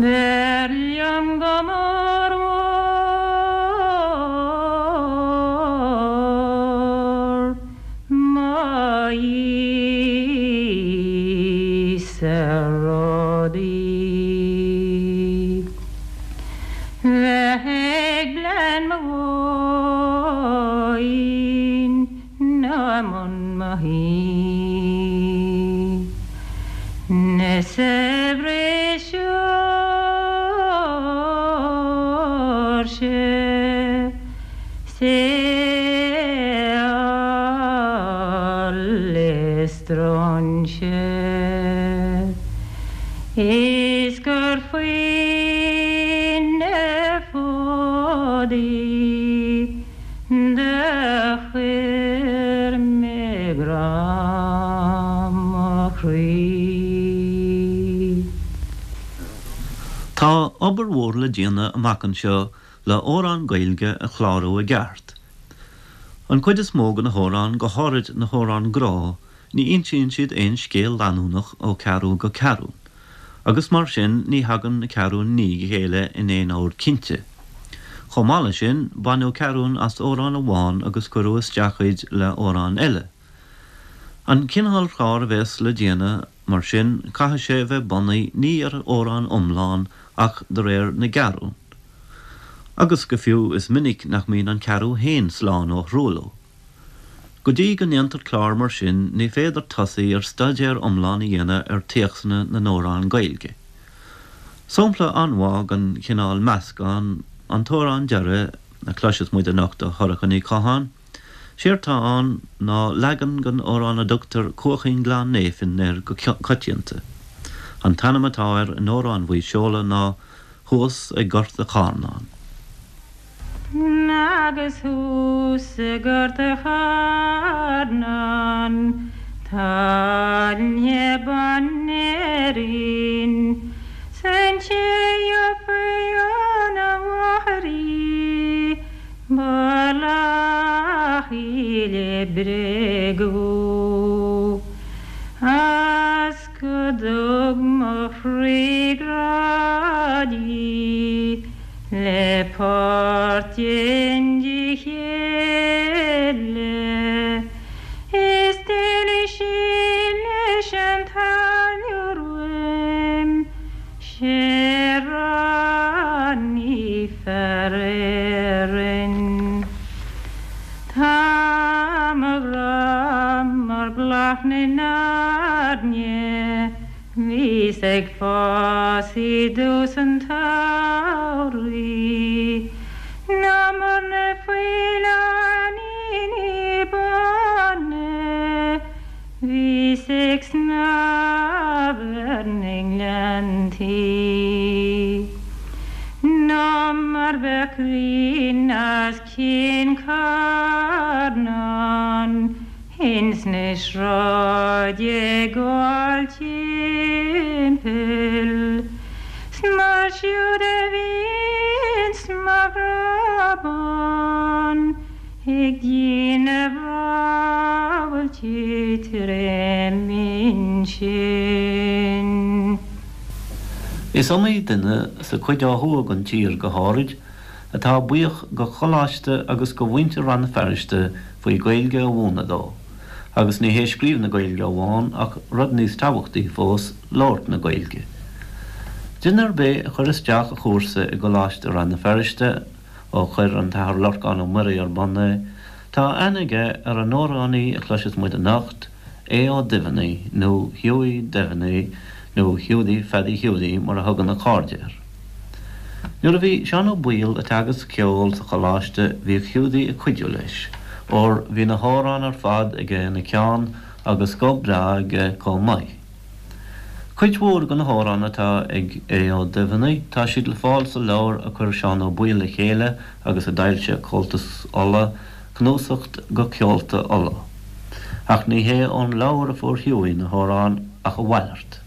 B'fhearr liom go mór mhór mo Íosa rudaí bheith ag bleán mo mhóin ná i mbun mo thí. Na saibhris Seoirse 's eol is stróinse is gur faoi na fódaí do chuir mé grá mo chroí. Tá obair mhór le déanamh amach anseo le hamhráin Gaeilge a chlárú i gceart. An chuid is mó de na hamhráin, go háirid na hamhráin grá, ní insíonn siad aon scéal leanúnach ó cheathrú go ceathrún, agus mar sin ní thagann na ceathrúin i ndiaidh a chéile in aon ord cinnte. Chomh maith leis sin, baineadh ceathrún as amhrán amháin agus cuireadh isteach iad le hamhrán eile. An cineál cláir a bhéas le déanamh, mar sin, caithfidh sé a bheith bunaithe ní ar amhrán iomlán ach de réir na gceathrún. Agus go fiú is minic nach mbíonn an ceathrú féin slán ó thruailliú. Go dtí go ndéantar clár mar sin ní féidir tosaí ar staidéar iomlán a dhéanamh ar théacsanna na n-amhrán Gaeilge. Sampla an-mhaith den chineál meascán an t-amhrán deiridh a chloisfeas muid anocht ó Shorcha Ní Chatháin. Séard tá ann ná leagan den amhrán a dtugtar Cuaichín Ghleann Néifinn air go coitianta. An t-ainm atá air in Amhráin Mhaigh Seola ná Thuas ag Gort a' Chárnáin. Agus thuas i nGort a' Chárnáin tá ailthe ban Éirinn 's an té gheobhaidh óna mháthair í ba lach í le bréagadh. A's go dtug mo chroí grá di le páirt i ndiaidh chéile is d'éalaigh sí leis an táilliúir uaim 'sé ráiní fear Éireann. Tá mo ghrá mar bhláth na n-airne bhíos ag fás i dtús an tsamhraidh ná mar na faoileáiníní bána bhíos ag snámh ar na ngleanntaí ná mar bheadh grian as Cionn Charnáin ins na sráid ag gabháil timpeall 's mar siúd a bhíonns mo ghrá bán ag déanamh rámhaillte trém ansin. Is iomaí duine, sa chuid ó thuaidh den tír go háirid, atá buíoch go Choláiste agus go mhuintir Rann na Feirste faoi Gaeilge a mhúineadh dó. Agus ní hé scríobh na Gaeilge amháin ach rud níos tabhachtaí fós, labhairt na Gaeilge. Duine ar bith a chuir isteach a chúrsa i gColáiste Rann na Feirste, ó chuir an tAthair Lorcán Ó Muirí ar bun é, tá aithne aige ar an amhránaí a chloisfeas muid anocht, Aodh Ó Duibheannaigh, nó Hughie Devaney, nó Hiúdaí Pheadaí Hiúdaí mar a thugann a chairde air. Nuair a bhí Seán Ó Baoill ag teagasc ceoil sa choláiste bhíodh Hiúdaí ag cuidiú leis, óir bhí na hamhráin ar fad aige ina cheann agus guth breá aige chomh maith. Cuid mhór de na hamhráin atá ag Aodh Ó Duibheannaigh tá siad le fáil sa leabhar a chuir Seán Ó Baoill le chéile agus a d'fhoilsigh Comhaltas Uladh, Cnuasacht go Ceolta Uladh. Ach ní hé ón leabhar a fuair Hughie na hamhráin ach a mhalairt.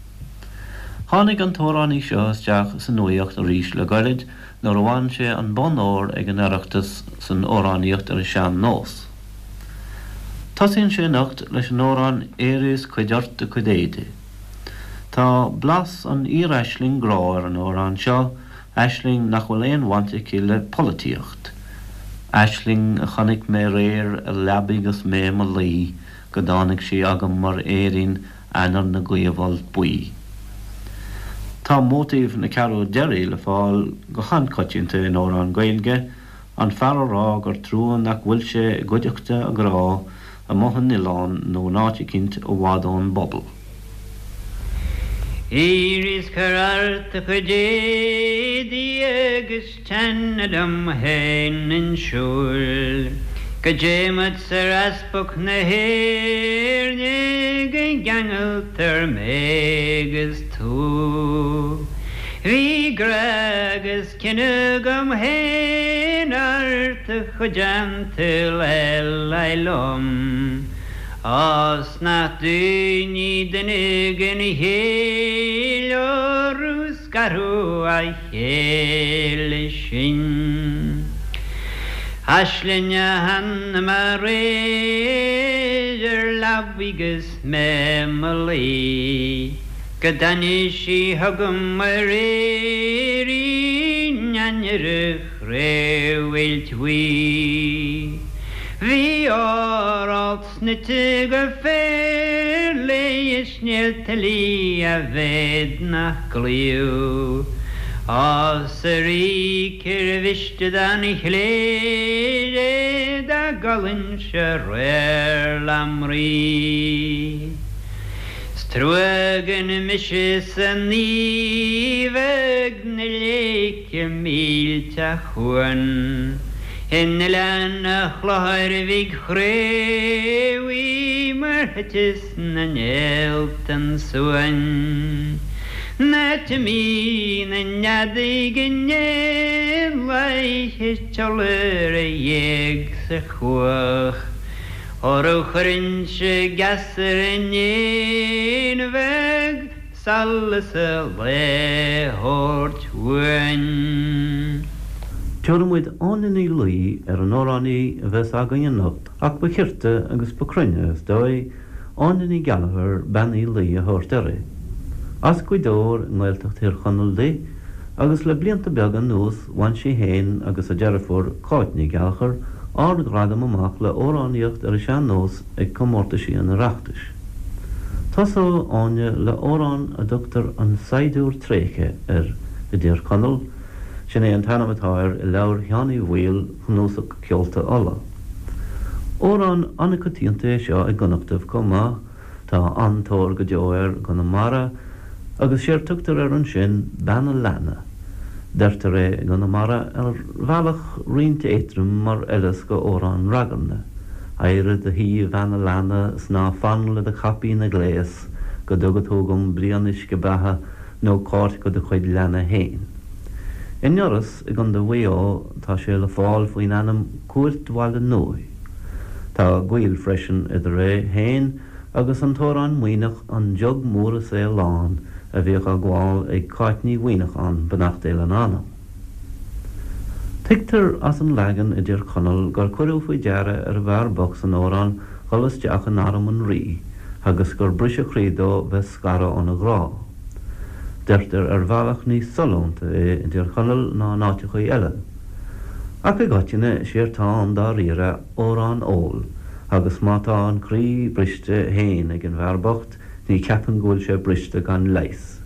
Tháinig an t-amhránaí seo isteach sa nuaíocht arís le goirid nuair a bhain sé an bonn óir ag an Oireachtas san amhránaíocht ar an sean-nós. Tosaíonn sé anocht leis an amhrán Éirigh is Cuir ort do chuid éadaigh. Tá blas an fhíor-aisling grá ar an amhrán seo, aisling nach bhfuil aon bhaint aici le polaitíocht. Aisling a chonaic mé aréir ar leabaidh 'gus mé i mo luí go dtáinig sí agam mar fhéirín Eanáir na gcaomh-fholt buí. Tá móitíf na ceathrú deiridh le fáil go han-choitianta in amhráin Ghaeilge, an fear a rá gur trua nach bhfuil sé i gcuideachta a ghrá amuigh in oileán nó in áit eicínt i bhfad ón bpobal. Éirigh is cuir ort do chuid éadaí agus Teann liom fhéin 'un siúil go dté muid 'sar easpag na hÉirne go gceangaltar mé 'gus tú. Bhí grá agus cion agam fhéin ort a chuid an tsaoil eile liom. Á 's nach daoine duine den chéill orthu scaradh a chéile sinn. Aisling a chonaic mé aréir ar leabaidh 'gus mé 'mo luí, go dtáinig sí chugam mar fhéirín ainnir an chraobh-ailt bhuí. Bhí ór alt Snoite go féar léi is néalta liath a mhéad nach gcloíodh. Á 's a Rí cér mhiste don chléir é dá gcodlainnse aréir lem Rí. 'S trua gan mise san aoibh ag na léice millteach uain. In Oileán a' Chlochair Bhig Chraobhaigh mar thiteas na néalta an suan. An áit a mbíonn an fheadóig in éanlaith is iolar a ghéag sa chuach. Óró chuirinnse geasa ar an éan bheag Solas an lae a thabhairt uainn. Tabharfaidh muid Áine Ní Laoi ar an amhránaí a bheas againn anocht ach ba chirte agus ba cruinne, is dóigh, Áine Ní Gheallachair, Bean Uí Laoi a thabhairt uirthi. As Gaoth Dobhair i nGaeltacht Thír Chonaill di agus le blianta beaga anuas bhain sí féin agus a deirfiúr, Cáit Ní Gheallachair, ardghradam amach le amhránaíocht ar an sean-nós ag comórtaisí an Oireachtais. Tosóidh Áine le amhrán a dtugtar 'An Saighdiúir Tréigthe' air i dTír Chonaill, sin é an t-ainm atá air i leabhar Sheáin Uí Bhaoill, Cnuasach Ceolta Uladh. Amhrán an-choitianta é seo i gConnachtaibh chomh maith, tá an-tóir go deo air i gConamara agus séard tugtar air ansin 'Bean a' Leanna'. Deirtear é i gConamara ar bhealach roinnt éadrom mar fhoileas go amhrán ragairne. Éirigh i do shuí a bhean a' leanna 's ná fan le do chaipín a ghléas go dtuga tú dhom braon uisce beatha nó cárt go do chuid leanna fhéin. I nIorras i gCondae Mhaigh Eo tá sé le fáil faoin ainm Cúirt Bhaile Nuadh. Tá gaol freisin idir é fhéin agus an t-amhrán Muimhneach An Jug Mór is é Lán a bhíodh á gabháil ag Cáit Ní Mhuimhneacháin, beannacht Dé lena anam. Tuigtear as an leagan i dTír Chonaill gur cuireadh faoi deara ar an bhfear bocht san amhrán dhul isteach in arm an rí agus gur briseadh croí dó bheith scartha óna ghrá. Deirtear ar bhealach níos sollúnta é i dTír Chonaill ná in áiteachaí eile. Ach i gcoitinne, séard tá ann dáiríre amhrán óil, agus má tá an croí briste fhéin ag an bhfear bocht, ní cheapaim go bhfuil sé briste gan leigheas.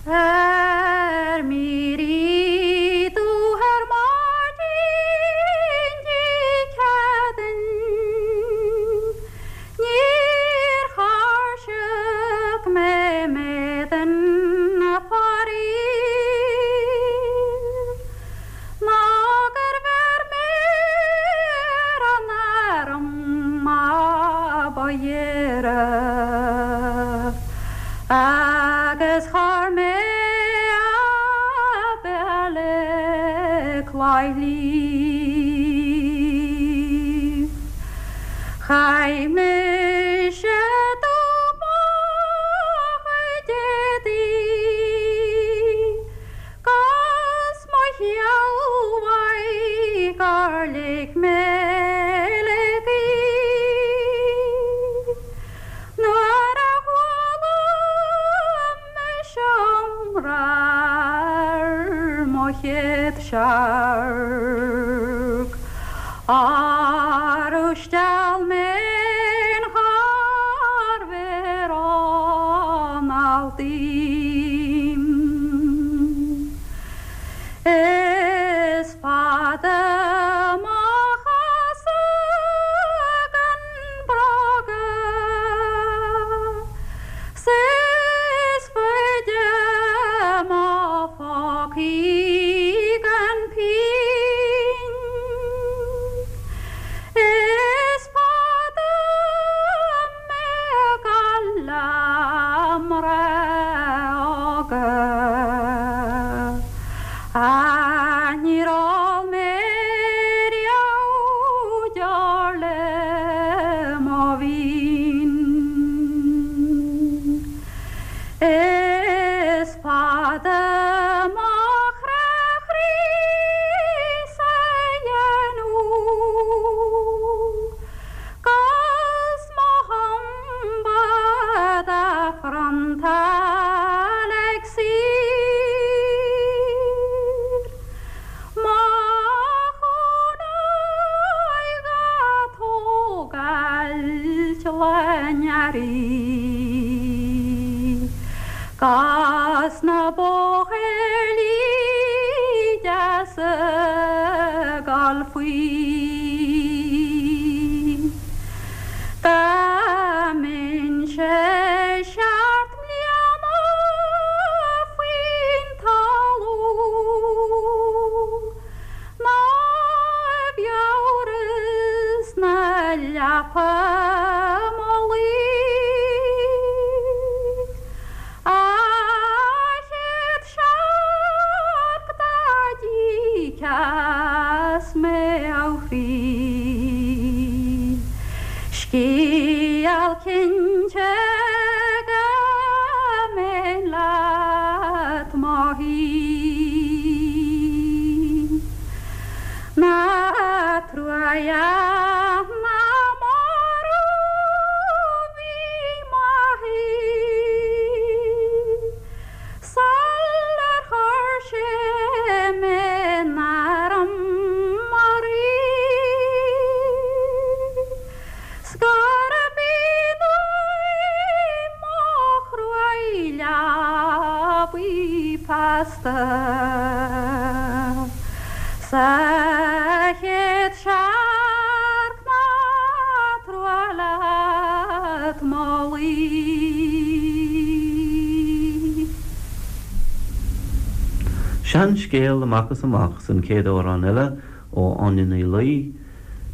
Ar m'éirí dubh ar maidin Dé Céadaoin Níor thairsigh mé m'éadan faraor Ná gur bheir mé ar an arm a ba ghéire Agus chuir mé a béal i gclaí shliabh. Chaith mise dubh mo chuid éadaí 'gus mo shealbhaidh gur lig mé le gaoth. Nuair a chuala mise iomrá ar mo chéad searc, Arú steall mé in char mhéar anall díom. Is fada mo chosa gan bróga 's is faide mo phócaí gan pínn. Is fada mé ag gabháil le mná óga Ach níor ól mé riamh deoir le mo mhín. Is fada mo chrá chroí sa dhéanamh 'Gus mo thumba dá phriontáil ag saoir Mo chónaí dhá tógáilt le n-earraí 'Gus na bóthairlí deasa 'gabháil faoi. Dá mbeinnse seacht mbliana faoin talamh Ná i bhfiabhras na leapa mo luí A chéad searc dá dtíceas mé a chroí. Scéal cinnte go mbeinn leat mo shuí. Ná truaighe na marbh bhí m'athair. Sular chuir sé mé in arm mar rí, 's gurb in uaim mo chruaidh leabaidh feasta. Sa chéad searc ná trua leat mo luí. Seanscéal amach is amach san chéad amhrán eile ó Áine Ní Laoi,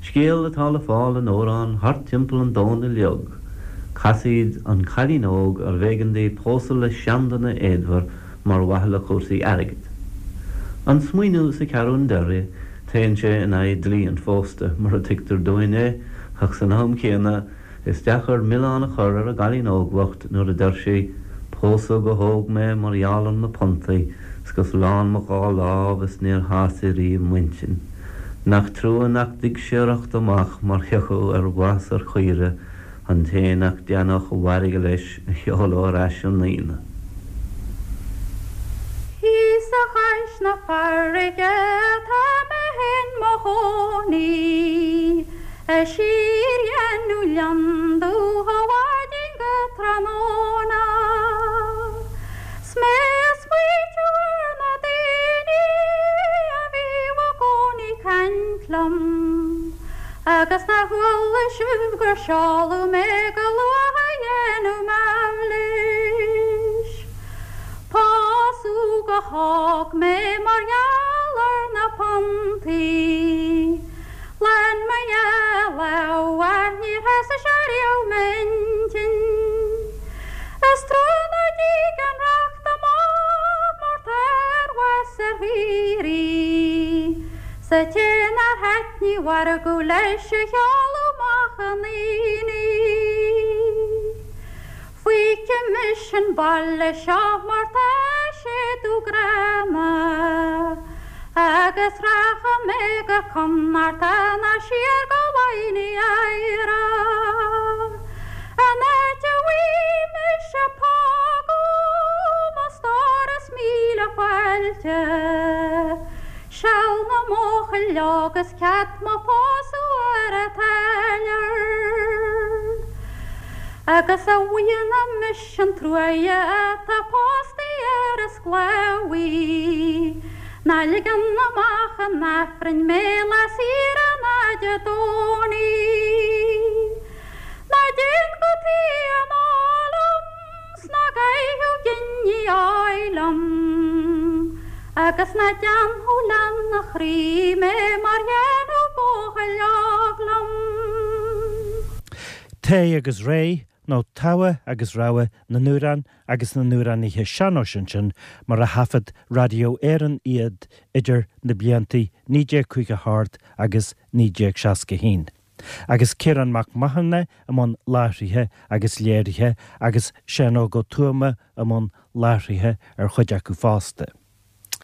scéal atá le fáil in amhrán Thart Timpeall an Domhain Uileag, casaoid an chailín óg arbh éigean di pósadh le seanduine éadmhar mar mhaithe le cúrsaí airgid. An smaoineamh sa cheathrún deiridh, téann sé in aghaidh dlí an phósta, mar a tuigtear dúinn é, ach san am chéanna, is deacair milleán a chur ar an gcailín óg bhocht nuair a deir sí, Pósadh go hóg mé mar gheall ar na puntaí, 's gus lán mo dhá lámh is níor shásaigh riamh m'intinn. Nach trua nach dtig siorracht amach mar thiocfadh ar mhaith 's ar chaoire an té nach dtaitneodh a mhairge leis a sheoladh ar ais 'on Aoine. Thíos. Thíos chois na farraige atá mé in mo chónaí, A síordhéanamh lionndubh ó mhaidin go tráthnóna. 'S mé a' smaoitiú ar na daoine a bhíodh i gcónaí caint liom, Agus nár chuala sibh gur seoladh mé go luath a dhéanamh m'aimhlis. Pósadh go hóg mé mar gheall ar na puntaí. Lán mo dhá lámh ach níor shásaigh sé riamh m'intinn. Is trua ná dtig an racht amach mar tá ar bhás ar shaoraí. 'S an té nár thaitnigh a mhargadh leis a sheoladh amach 'un aonaigh. Feicfidh mise an baile seo mar tá sé dubh gránna, agus rachaidh mé go Connachta ná siar go Laighin Éire, an áit a bhfaighidh mise póg ó mo stór is míle fáilte, Seal na mbuachaill óg is cead mo phósadh ar an táilliúir. Agus a mhionna mise an truaighe atá pósta ar an sclábhaí, ná ligeann amach an Aifrinn mé lá saoire ná Dé Domhnaigh. Ná déan gutaí anall liom. 'S ná gabhadh giní áidh liom, Agus ná déanfadh leanna chroí mé mar dhéanadh buachaill óg liom. Tae agus Réidh, nó Togha agus Rogha na nAmhrán agus na nAmhránaithe Sean-nóis ansin mar a thaifead Radio Éireann iad idir na blianta 1958 agus 1961. Agus Ciarán Mac Mathúna i mbun láithrithe agus léirithe agus Seán Óg Ó Tuama i mbun láithrithe ar chuid acu fosta.